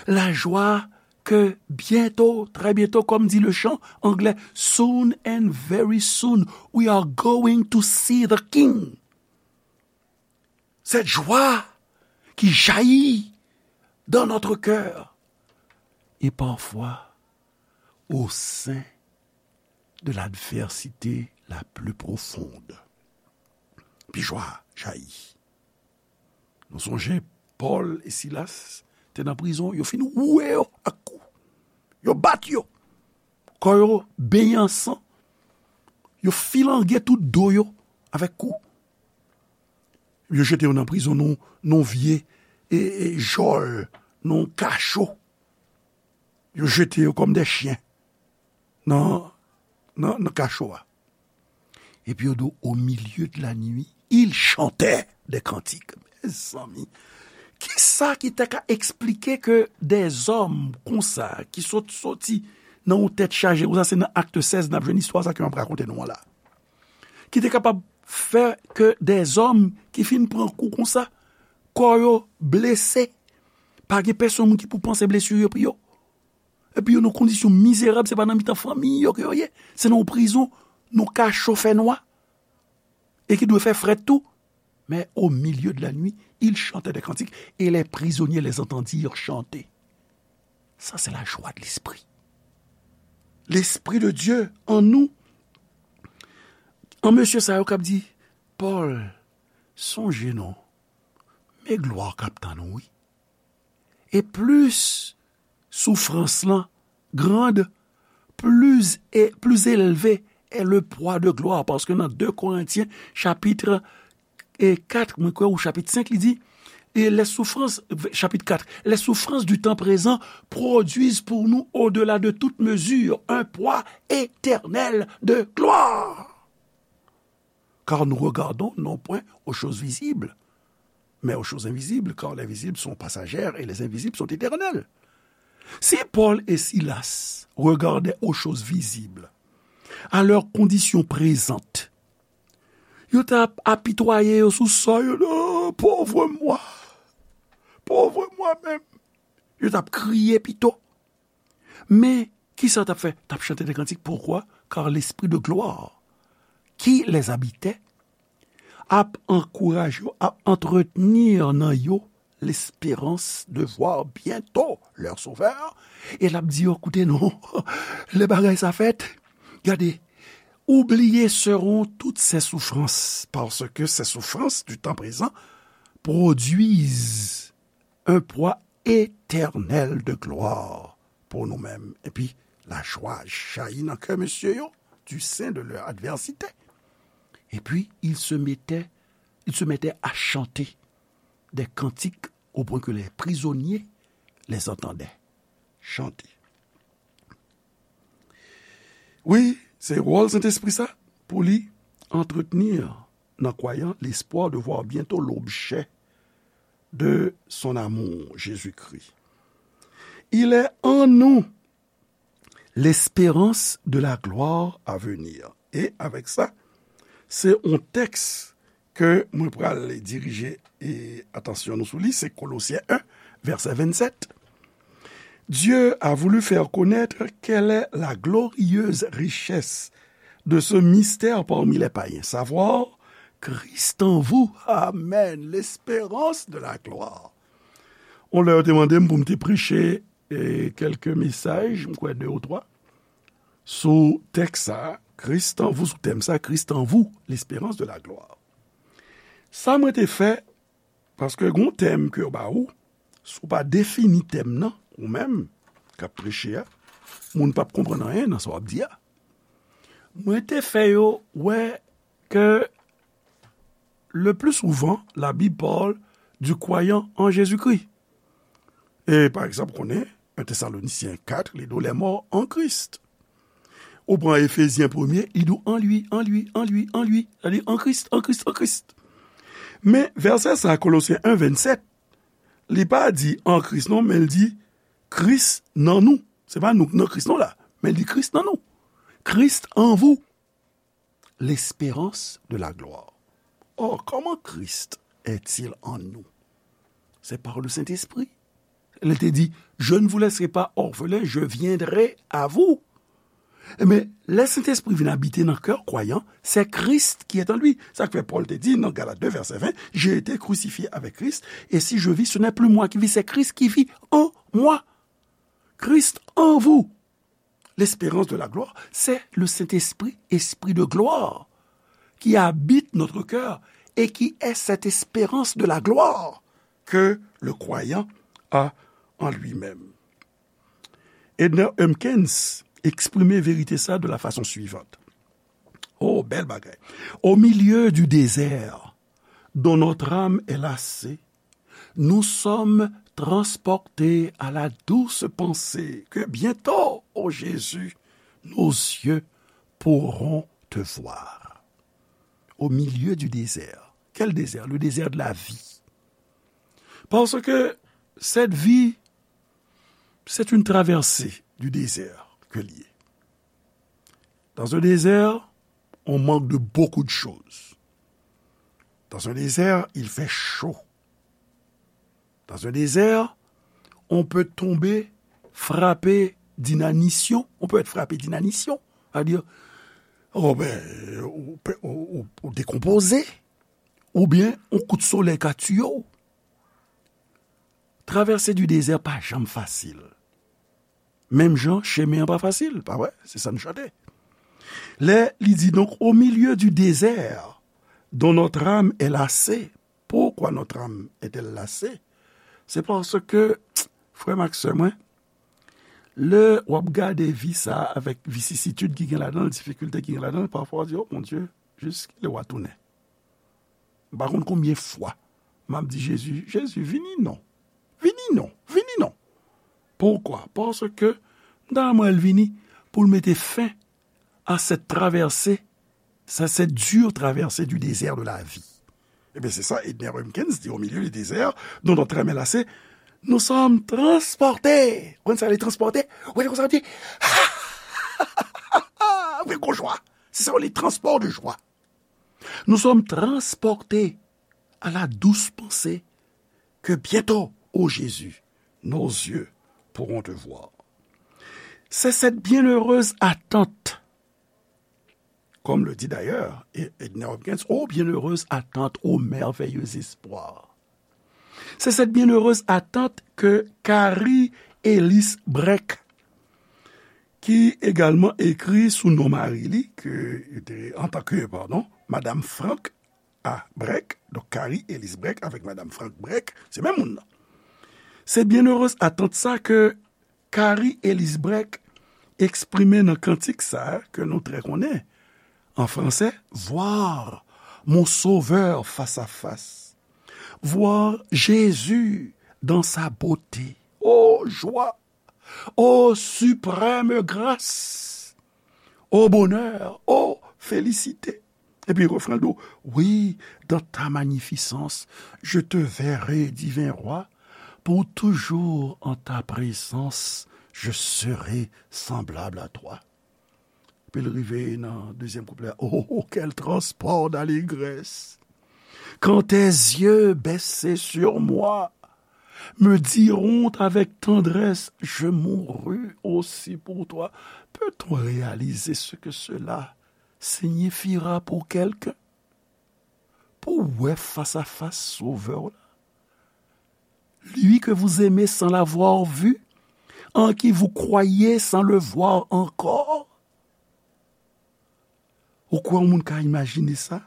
la joie que bientôt, très bientôt, comme dit le chant anglais, soon and very soon, we are going to see the King. Cette joie qui jaillit dans notre cœur et parfois au sein de l'adversité la plus profonde. Pi jwa jayi. Nou sonje Pòl e Silas te nan prizon, yo fin woule yo ak kou. Yo bat yo. Kò yo benyen an san. Yo filange tout do yo avèk kou. Yo jete yo nan prizon, nan, nan vye e, e, jòl, nan kacho. Yo jete yo kòm de chyen nan, nan, nan kacho a. Epi yo di, au milieu de la nuit, ils chantaient des cantiques. Mezanmi, kisa ki ta ka eksplike ke dèzòm konsa, ki sot soti nan yon tèt chaje konsa, se nan Akt sèz n ap jwenn istwa sa ke m ap rakonte nou an la. Ki te kapab fè ke dèzòm ki fin pran kou konsa, kò yo blese, pa gen pèsonn moun ki pou panse blesi yo pou yo. Epi yo nan kondisyon mizerab, se pa nan mitan fanmi yo ke yo ye, se nan yon prizon, nan kacho fènwa, e ki dwe fè frèt tou. Mais au milieu de la nuit, ils chantaient des cantiques, et les prisonniers les entendirent chanter. Ça, c'est la joie de l'esprit. L'Esprit de Dieu en nous. An mesye sa yo k ap di, Pòl, sonje non, men glwa k ap tann ou, wi. E plis soufrans lan grand, plus, et, plus élevé est le poids de gloire. Paske nan de Korentyen, chapit e kat, mwen kwè, ou chapit senk, li di, et les souffrances, chapit kat, les souffrances du temps présent produisent pour nous, au-delà de toute mesure, un poids éternel de gloire. Car nous regardons non point aux choses visibles, mais aux choses invisibles, car les visibles sont passagères et les invisibles sont éternelles. Si Paul et Silas regardaient aux choses visibles, à leur condition présente, yo t ap apitwaye yo sou sò yo, non, pauvre moi, pauvre moi-même. Yo t ap kriye pito. Men, kisa yo t ap fè? T ap chante de kantik. Poukwa? Car l'Esprit de gloire qui les habitait ap ankouraje yo, ap antretni nan yo l'espérance de voir bientôt leur Sauveur. E l ap di yo, koute non, lè bagay sa fèt, gade, oubliées seront toutes ces souffrances, parce que ces souffrances du temps présent produisent un poids éternel de gloire pour nous-mêmes. Epi, lajwa jayi nan kè mesye yo, du sein de leur adversité. Et puis, ils se mettaient, ils se mettaient à chanter des cantiques au point que les prisonniers les entendaient chanter. Wi, se wòl Sentespri sa, pou li antretni nan kwayan l'espoir de voir bientôt l'objet de son amour, Jésus-Christ. Il est en nous l'espérance de la gloire à venir. E avèk sa, se yon tèks ke mwen pral dirije, e, atansyon nou sou li, se Kolosyen en, vèsè vennsèt. Dieu a voulu faire connaître quelle est la glorieuse richesse de ce mystère parmi les païens, savoir Christ en vous. Amen. L'espérance de la gloire. On lè yo te mande m pou m te preche, e, kèlke mesaj, m kwè de ou twa, sou tèks sa, Christ en vous, sou tèm sa, Christ en vous, l'espérance de la gloire. Sa mwen te fè, paske gon tèm ke yo ba ou, si w pa defini tèm nan, ou menm k ap preche a, moun p ap konprann anyen nan sa w ap di a. Mwen te fè yo wè ke le plus souvent, la Bible parle du croyant en Jésus-Christ. E, pa egzanp, konnen, en Thessaloniciens quatre, li di w les morts en Christ. Ou pran Efezyen premye, li di w an li, an li, an li, an li. Sa di an Kris, an Kris, an Kris. Men vèsè sa, Kolosyen en vennset, li pa di an Kris non, men l di Kris nan nou. Se pa nou k nan Kris non la, men l di Kris nan nou. Christ en vous, l'espérance de la gloire. Or, comment Christ est-il en nous? C'est par le Saint-Esprit. Li te di, je ne vous laisserai pas orphelins, je viendrai à vous. Men lè Sentespri vin abite nan kè kwayan, c'est Christ qui est en lui. Sa k fè Pòl te di nan Galat de vèsè ven, j'ai été crucifié avec Christ, et si je vis, ce n'est plus moi qui vis, c'est Christ qui vit en moi. Christ en vous, l'espérance de la gloire, c'est le Saint-Esprit, Esprit de gloire, qui habite notre cœur et qui est cette espérance de la gloire que le croyant a en lui-même. Edner Humpkins eksprime verite sa de la fason suivante. Oh, bèl bagay. Au milieu du désert dont notre âme est lassée, nous sommes transportés à la douce pensée que bientôt, ô Jésus, nos yeux pourront te voir. Au milieu du désert. Quel désert? Le désert de la vie. Parce que cette vie, c'est une traversée du désert que li ye. Dans un désert, on manque de beaucoup de choses. Dans un désert, il fait chaud. Dans un désert, on peut tomber frappé d'inanition. On peut être frappé d'inanition. C'est-à-dire, oh ben, ou, ou, ou, ou décomposé, oubyen on kout solèy ka tiye w. Traversée du désert pa janm fasil. Menm jan, chemen an pa fasil, pa vre? Se sa n chante. Lè li di, donc, au milieu du désert dont notre âme est lassée. Pourquoi notre âme est-elle lassée? C'est parce que, frè m ak sè mwen, lè w ap gade vi sa a avèk visisitid ki gen ladan l, difikilte ki gen ladan l, pafwa w di, oh mon Dieu, jiskilè w a tounen? M pa konn konbyen fwa m ap di Jezi, Jezi, vini non. Vini non. Vini non. Poukwa? Paske m ta renmen l vini pou l mete fen à cette traversée, à cette dure traversée du désert de la vie. Ebyen, se sa Edner Humpkins di, au milieu du désert dont notre âme est lassée, nous sommes transportés. Ou konn sa, li transpòte? Ou konn sa, li avèk yon jwa. Se sa, les transports de joie. Nous sommes transportés à la douce pensée que bientôt, ô Jésus, nos yeux pourront te voir. C'est cette bienheureuse attente, comme le dit d'ailleurs Edner Humpkins, ô bienheureuse attente, ô merveilleux espoir. C'est cette bienheureuse attente que Carrie Ellis Breck, ki egalman ekri sou non mari li, ke, antanke, padon, Madam Frank A. Breck, donk Carrie Ellis Breck avèk Madam Frank Breck, se menm moun nan. Se byennerez atant sa ke Carrie Ellis Breck eksprime nan kantik sa a ke nou trè konnen, an fransè, voir mon Sauveur face à face, voir Jésus dans sa beauté. Oh, joie! Oh, suprême grâce! Oh, bonheur! Oh, félicité! Epi refren l di w, oui, dans ta magnificence, je te verrai, divin roi, pour toujours en ta présence, je serai semblable à toi. Epi l rive nan dezyèm kouplè a, oh, quel transport d'allégresse! Quand tes yeux baissés sur moi me diront avec tendresse, je mourus aussi pour toi. Peut-on réaliser ce que cela signifiera pour quelqu'un? Pou wè fas a fas Sovè w la. Lui que vous aimez sans l'avoir vu, en qui vous croyez sans le voir encore. Ou kwè yon moun ka imajine sa?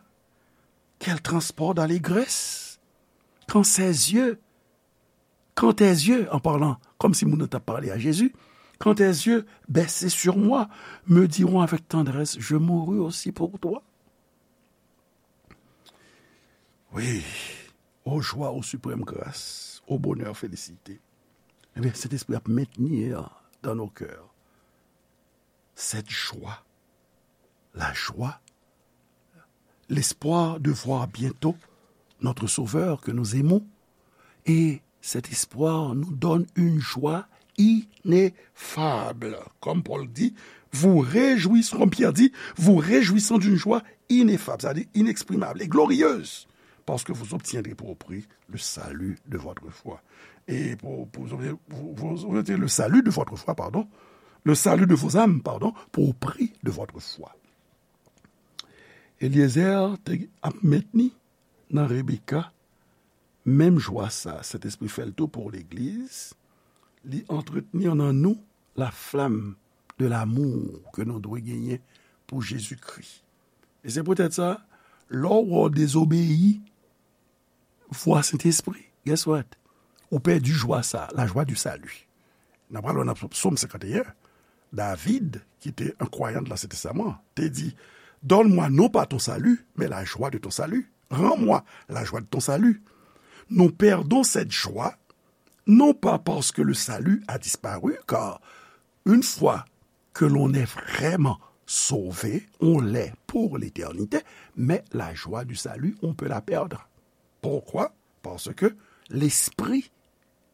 Quel transport d'allégresse! Quand ses yeux, quand tes yeux, en parlant, comme si moun nan t ap pale a Jezi, quand tes yeux baissés sur moi me diront avec tendresse, je mourus aussi pour toi. Oui, ô joie, ô suprême grâce, ô bonheur, félicité. Ebyen, Sentespri ap mentni dan nou kè cette joie la joie, l'espoir de voir bientôt notre Sauveur que nous aimons. Et cet espoir nous donne une joie ineffable. Comme Paul dit, vous réjouissant, comme Pierre dit, vous réjouissant d'une joie ineffable, c'est-à-dire inexprimable et glorieuse, parce que vous obtiendrez pour prix le salut de votre foi. Et pour, pour vous, vous, vous obtiendrez le salut de votre foi, pardon, le salut de vos âmes, pardon, pour prix de votre foi. Eliezer te ap mentni nan Rebeka menm jwa sa. Sentespri fè l tou pou legliz. Li antretni nan nou la flamme de l'amour ke nou dwe genyen pou Jezikri. E se poutèt sa, lè w wè w dezobeyi vwa Sentespri, guess what? Ou pèdi jwa sa, la joie du salut. N ap pral wè nan Sòm senkanteyen, David, ki te yon kwayan de l'Ancien Testament, te di, donne-moi non pas ton salut, mais la joie de ton salut. Rends-moi la joie de ton salut. Nous perdons cette joie, non pas parce que le salut a disparu, car une fois que l'on est vraiment sauvé, on l'est pour l'éternité, mais la joie du salut, on peut la perdre. Pourquoi? Parce que l'Esprit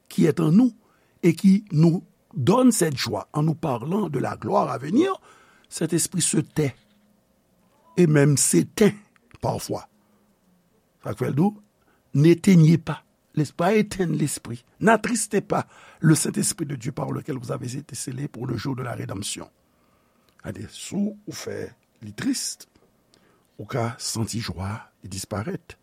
qui est en nous et qui nous donne cette joie en nous parlant de la gloire à venir, cet esprit se tait et même s'éteint parfois. Sa k fè l di w, n'éteignez pas l'esprit, pas éteindre l'esprit. N'attristez pas le Saint-Esprit de Dieu par lequel vous avez été scellés pour le jour de la rédemption. Gade, si w fè li tris, ou ka santi jwa li disparèt.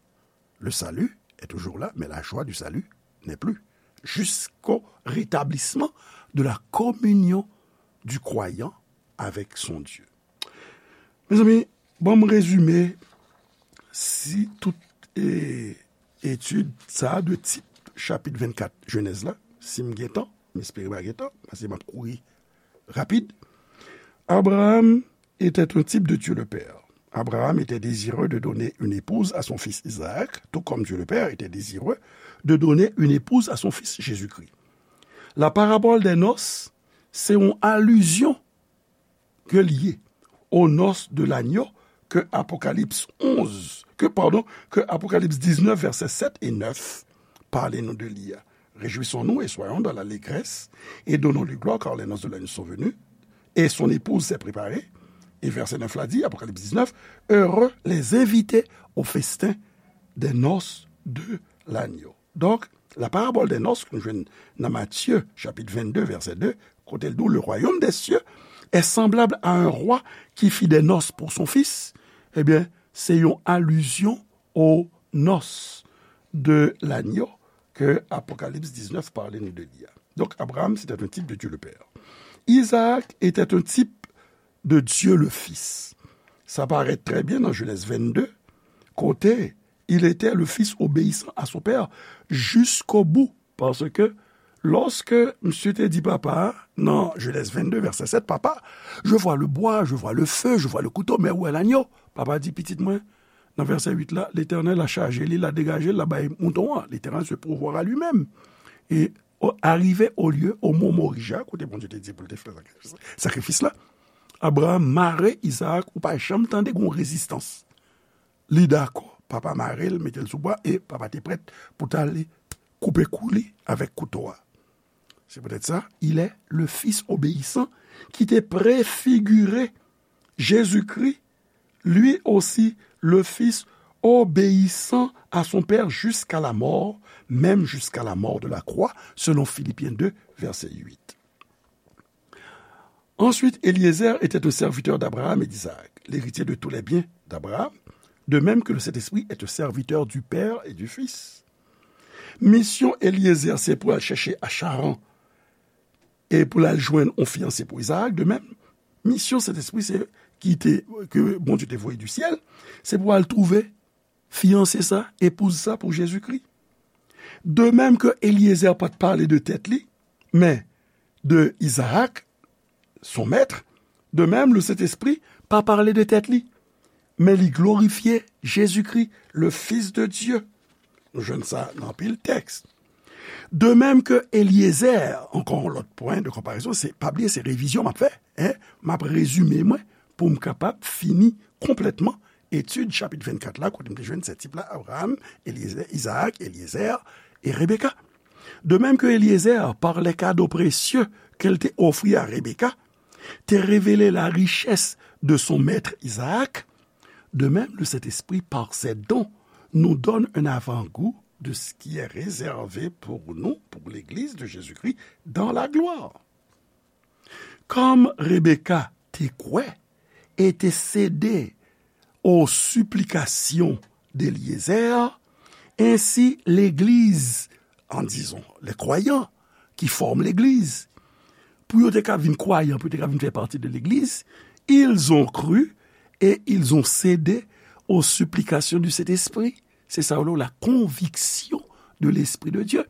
Le salut est toujours là, mais la joie du salut n'est plus. Jusqu'au rétablissement de la communion du croyant avec son Dieu. Mezanmi, ban m rezime si tout e, etid sa a de tip chapit vennkat Jenèz la, si m gen tan, m espere m pa gen tan, paske m ap kouri rapid. Abraham était un type de Dieu le Père. Abraham était désireux de donner une épouse à son fils Isaac, tout comme Dieu le Père était désireux de donner une épouse à son fils Jésus-Christ. La parabole des noces, se yon alizyon ke l ye aux noces de l'agneau ke Apokalips onz, ke, pardon, ke Apokalips diznèf, vèsè sèt e nèf pale nou de li a. Réjouissons-nous et soyons dans l'allégresse, et donnons-lui gloire, car les noces de l'agneau sont venues, et son épouse s'est préparée. Et verset neuf la dit, Apocalypse dix-neuf, heureux les invités au festin des noces de l'agneau. Donk, la parabole des noces ke nou jwenn nan Matye, chapit vennde, vèsè de, kote l di w, le royaume des cieux est semblable à un roi qui fit des noces pour son fils. Ebyen, se yon alizyon aux noces de l'agneau ke Apokalips diznèf pale nou de li a. Donc, Abraham, c'était un type de Dieu le Père. Isaac était un type de Dieu le Fils. Sa parèt trè byen nan Jenèz vennde, kote il était le fils obéissant à son père jusqu'au bout. Paske, lòske misye te di papa a, nan Jenèz vennde, vèsè sèt, papa, je vois le bois, je vois le feu, je vois le couteau, mais où est l'agneau? Papa di, pitit mwen, nan vèsè uit la, Letènèl la chaje li, la degaje l, la bay mouton an. L'Éternel se pourvoira lui-même. E o, arrivé au lieu, au mont Morija, kote Bondye te di pou l te fè sakrifis, sakrifis la, Abraham mare Izaak, ou pa janm tande gen yon rezistans. Li dakò, papa mare l, mete l sou bwa, e papa te prèt pou t ale koupe kou li avèk kouto a. C'est peut-être ça, il est le fils obéissant qui te préfigurait Jésus-Christ, lui aussi le fils obéissant à son père jusqu'à la mort, même jusqu'à la mort de la croix, selon Philippiens deux, verset huit. Ensuite, Éliézer était un serviteur d'Abraham et d'Isaac, l'héritier de tous les biens d'Abraham, de même que le Saint-Esprit est un serviteur du Père et du Fils. Misyon Éliézer, se pou al chèche a Charan e pou l al jwenn yon fiyanse pou Izaak. De menm, misyon Sentespri, se ki te, ke Bondye te voye di syèl, se pou al twouve fiyanse sa, epouz sa pou Jezikri. De menm ke Éliézer pa t pale de tèt li, men de Izaak, son mèt, de menm le Sentespri pa pale de tèt li, men li glorifye Jezikri, le Fils de Dieu. Nou jwenn sa nan anpil tèks. De menm ke Éliézer, ankò yon lòt pwen de konparezon, se, pa bliye, se revizyon m ap fè, en, m ap rezime mwen, pou m kapab fini konplètman etid chapit vennkat la, kote m te jwenn sèt tip la, Abraham, Eliezer, Izaak, Eliezer e Rebeka. De même que Eliezer, par les cadeaux précieux qu'elle te offrit à Rebecca, te révélé la richesse de son maître Isaac, de même le Saint-Esprit, par ses dons, nous donne un avant-goût de ce qui est réservé pour nous, pour l'Église de Jésus-Christ, dans la gloire. Kòm Rebeka te kwè e te sede aux supplications d'Eliezer, ainsi l'Église, en disant, les croyants qui forment l'Église, pou yo te ka vin kwayan, pou yo te ka vin fè pati de legliz, ils ont cru et ils ont cédé aux supplications du Saint-Esprit. Se sa yo rele la conviction de l'Esprit de Dieu.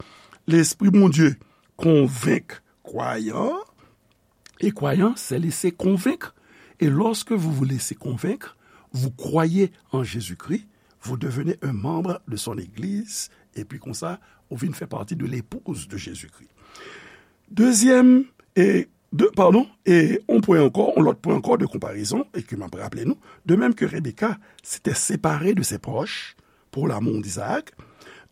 Lespri Bondye konvenk kwayan, et croyant s'est laissé convaincre. Et lorsque vous vous laissez convaincre, vous croyez en Jésus-Christ, vous devenez un membre de son Église, et puis konsa, ou vin fè pati de l'épouse de Jésus-Christ. Dezyèm, e, de, padon, e yon pwen ankò, yon lòt pwen ankò de konparezon, e ke m ap raple nou, de même que Rebecca s'était séparée de ses proches pour l'amour d'Isaac,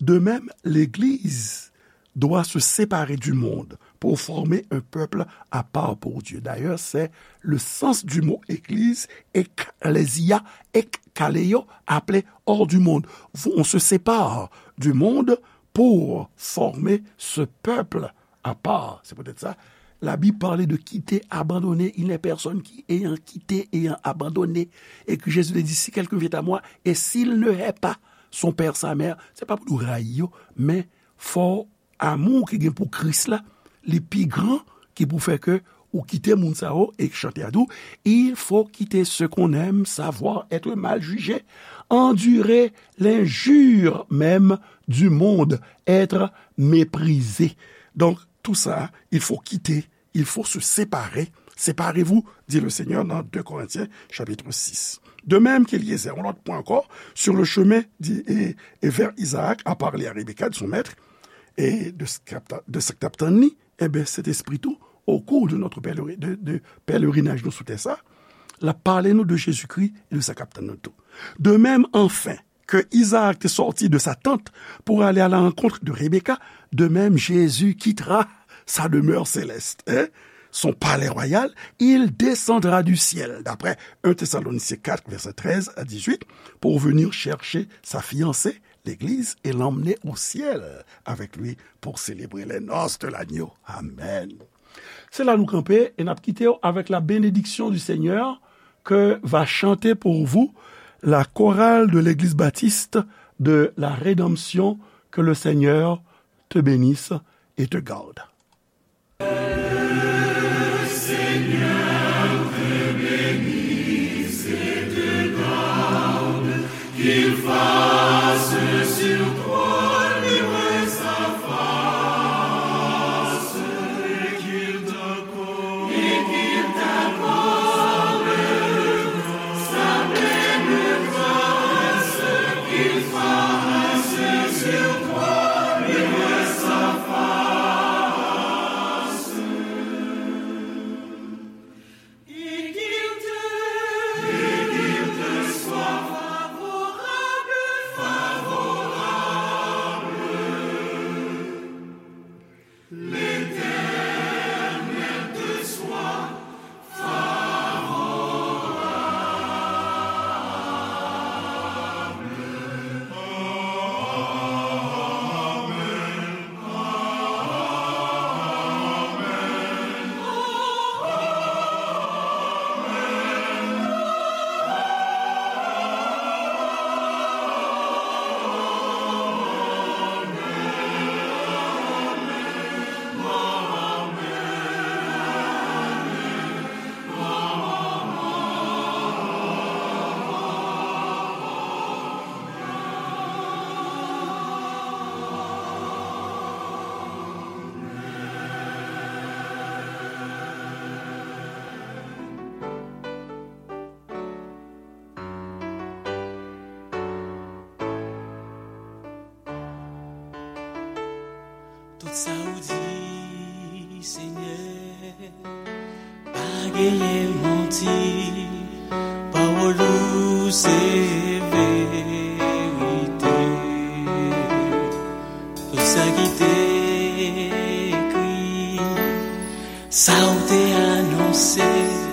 de même l'Église doit se séparer du monde pour former un peuple à part pour Dieu. D'ailleurs, c'est le sens du mot église, ekklesia, ekkaleo, appelé hors du monde. On se sépare du monde pour former ce peuple à part. C'est peut-être ça. La Bible parle de quitter, abandonner. Il n'est personne qui, ayant quitté, ayant abandonné. Et que Jésus te dit, si quelqu'un vient à moi, et s'il ne hait pas son père, sa mère, se pa pou nou rayi yo, men fò amou ki gen pou Kris la, li pi gran ki pou fè ke ou kite moun sa yo, e chante a tou, il faut quitter ce qu'on aime, savoir être mal jugé, endurer l'injure même du monde, être méprisé. Donc, tout ça, il faut quitter, il faut se séparer. Séparez-vous, dit le Seigneur dans deux Corinthiens chapitre six. De même qu'Eliezer, yon lòt pwen ankò, sur le chemin, di, e, e vers Isaac, a parlé à Rebecca de son maître, e de sa k t ap tann li, enben, Sentespri tou, au cours de notre pèleri-, de, de pèlerinaj nou sou tè sa, l ap pale nou de Jezikri e de sa k ap tann nou tou. De même, enfin, que Isaac te sorti de sa tente pour aller à la rencontre de Rebecca, de même Jésus quittera sa demeure céleste, hein, son palais royal, il descendra du ciel, d'après un Thessaloniciens quatre, verset treize à dix-huit, pour venir chercher sa fiancée, l'Église, et l'emmener au ciel avec lui pour célébrer les noces de l'agneau. Amen. Se la nou kanpe e n ap kite w avec la bénédiction du Seigneur que va chanter pour vous la chorale de l'Église baptiste de la Rédemption. Que le Seigneur te bénisse et te garde. Tout sa ou di, Senyè, pa genyen manti. Pawòl ou se verite. Tout sa ki te ekri, sa ou te anonse,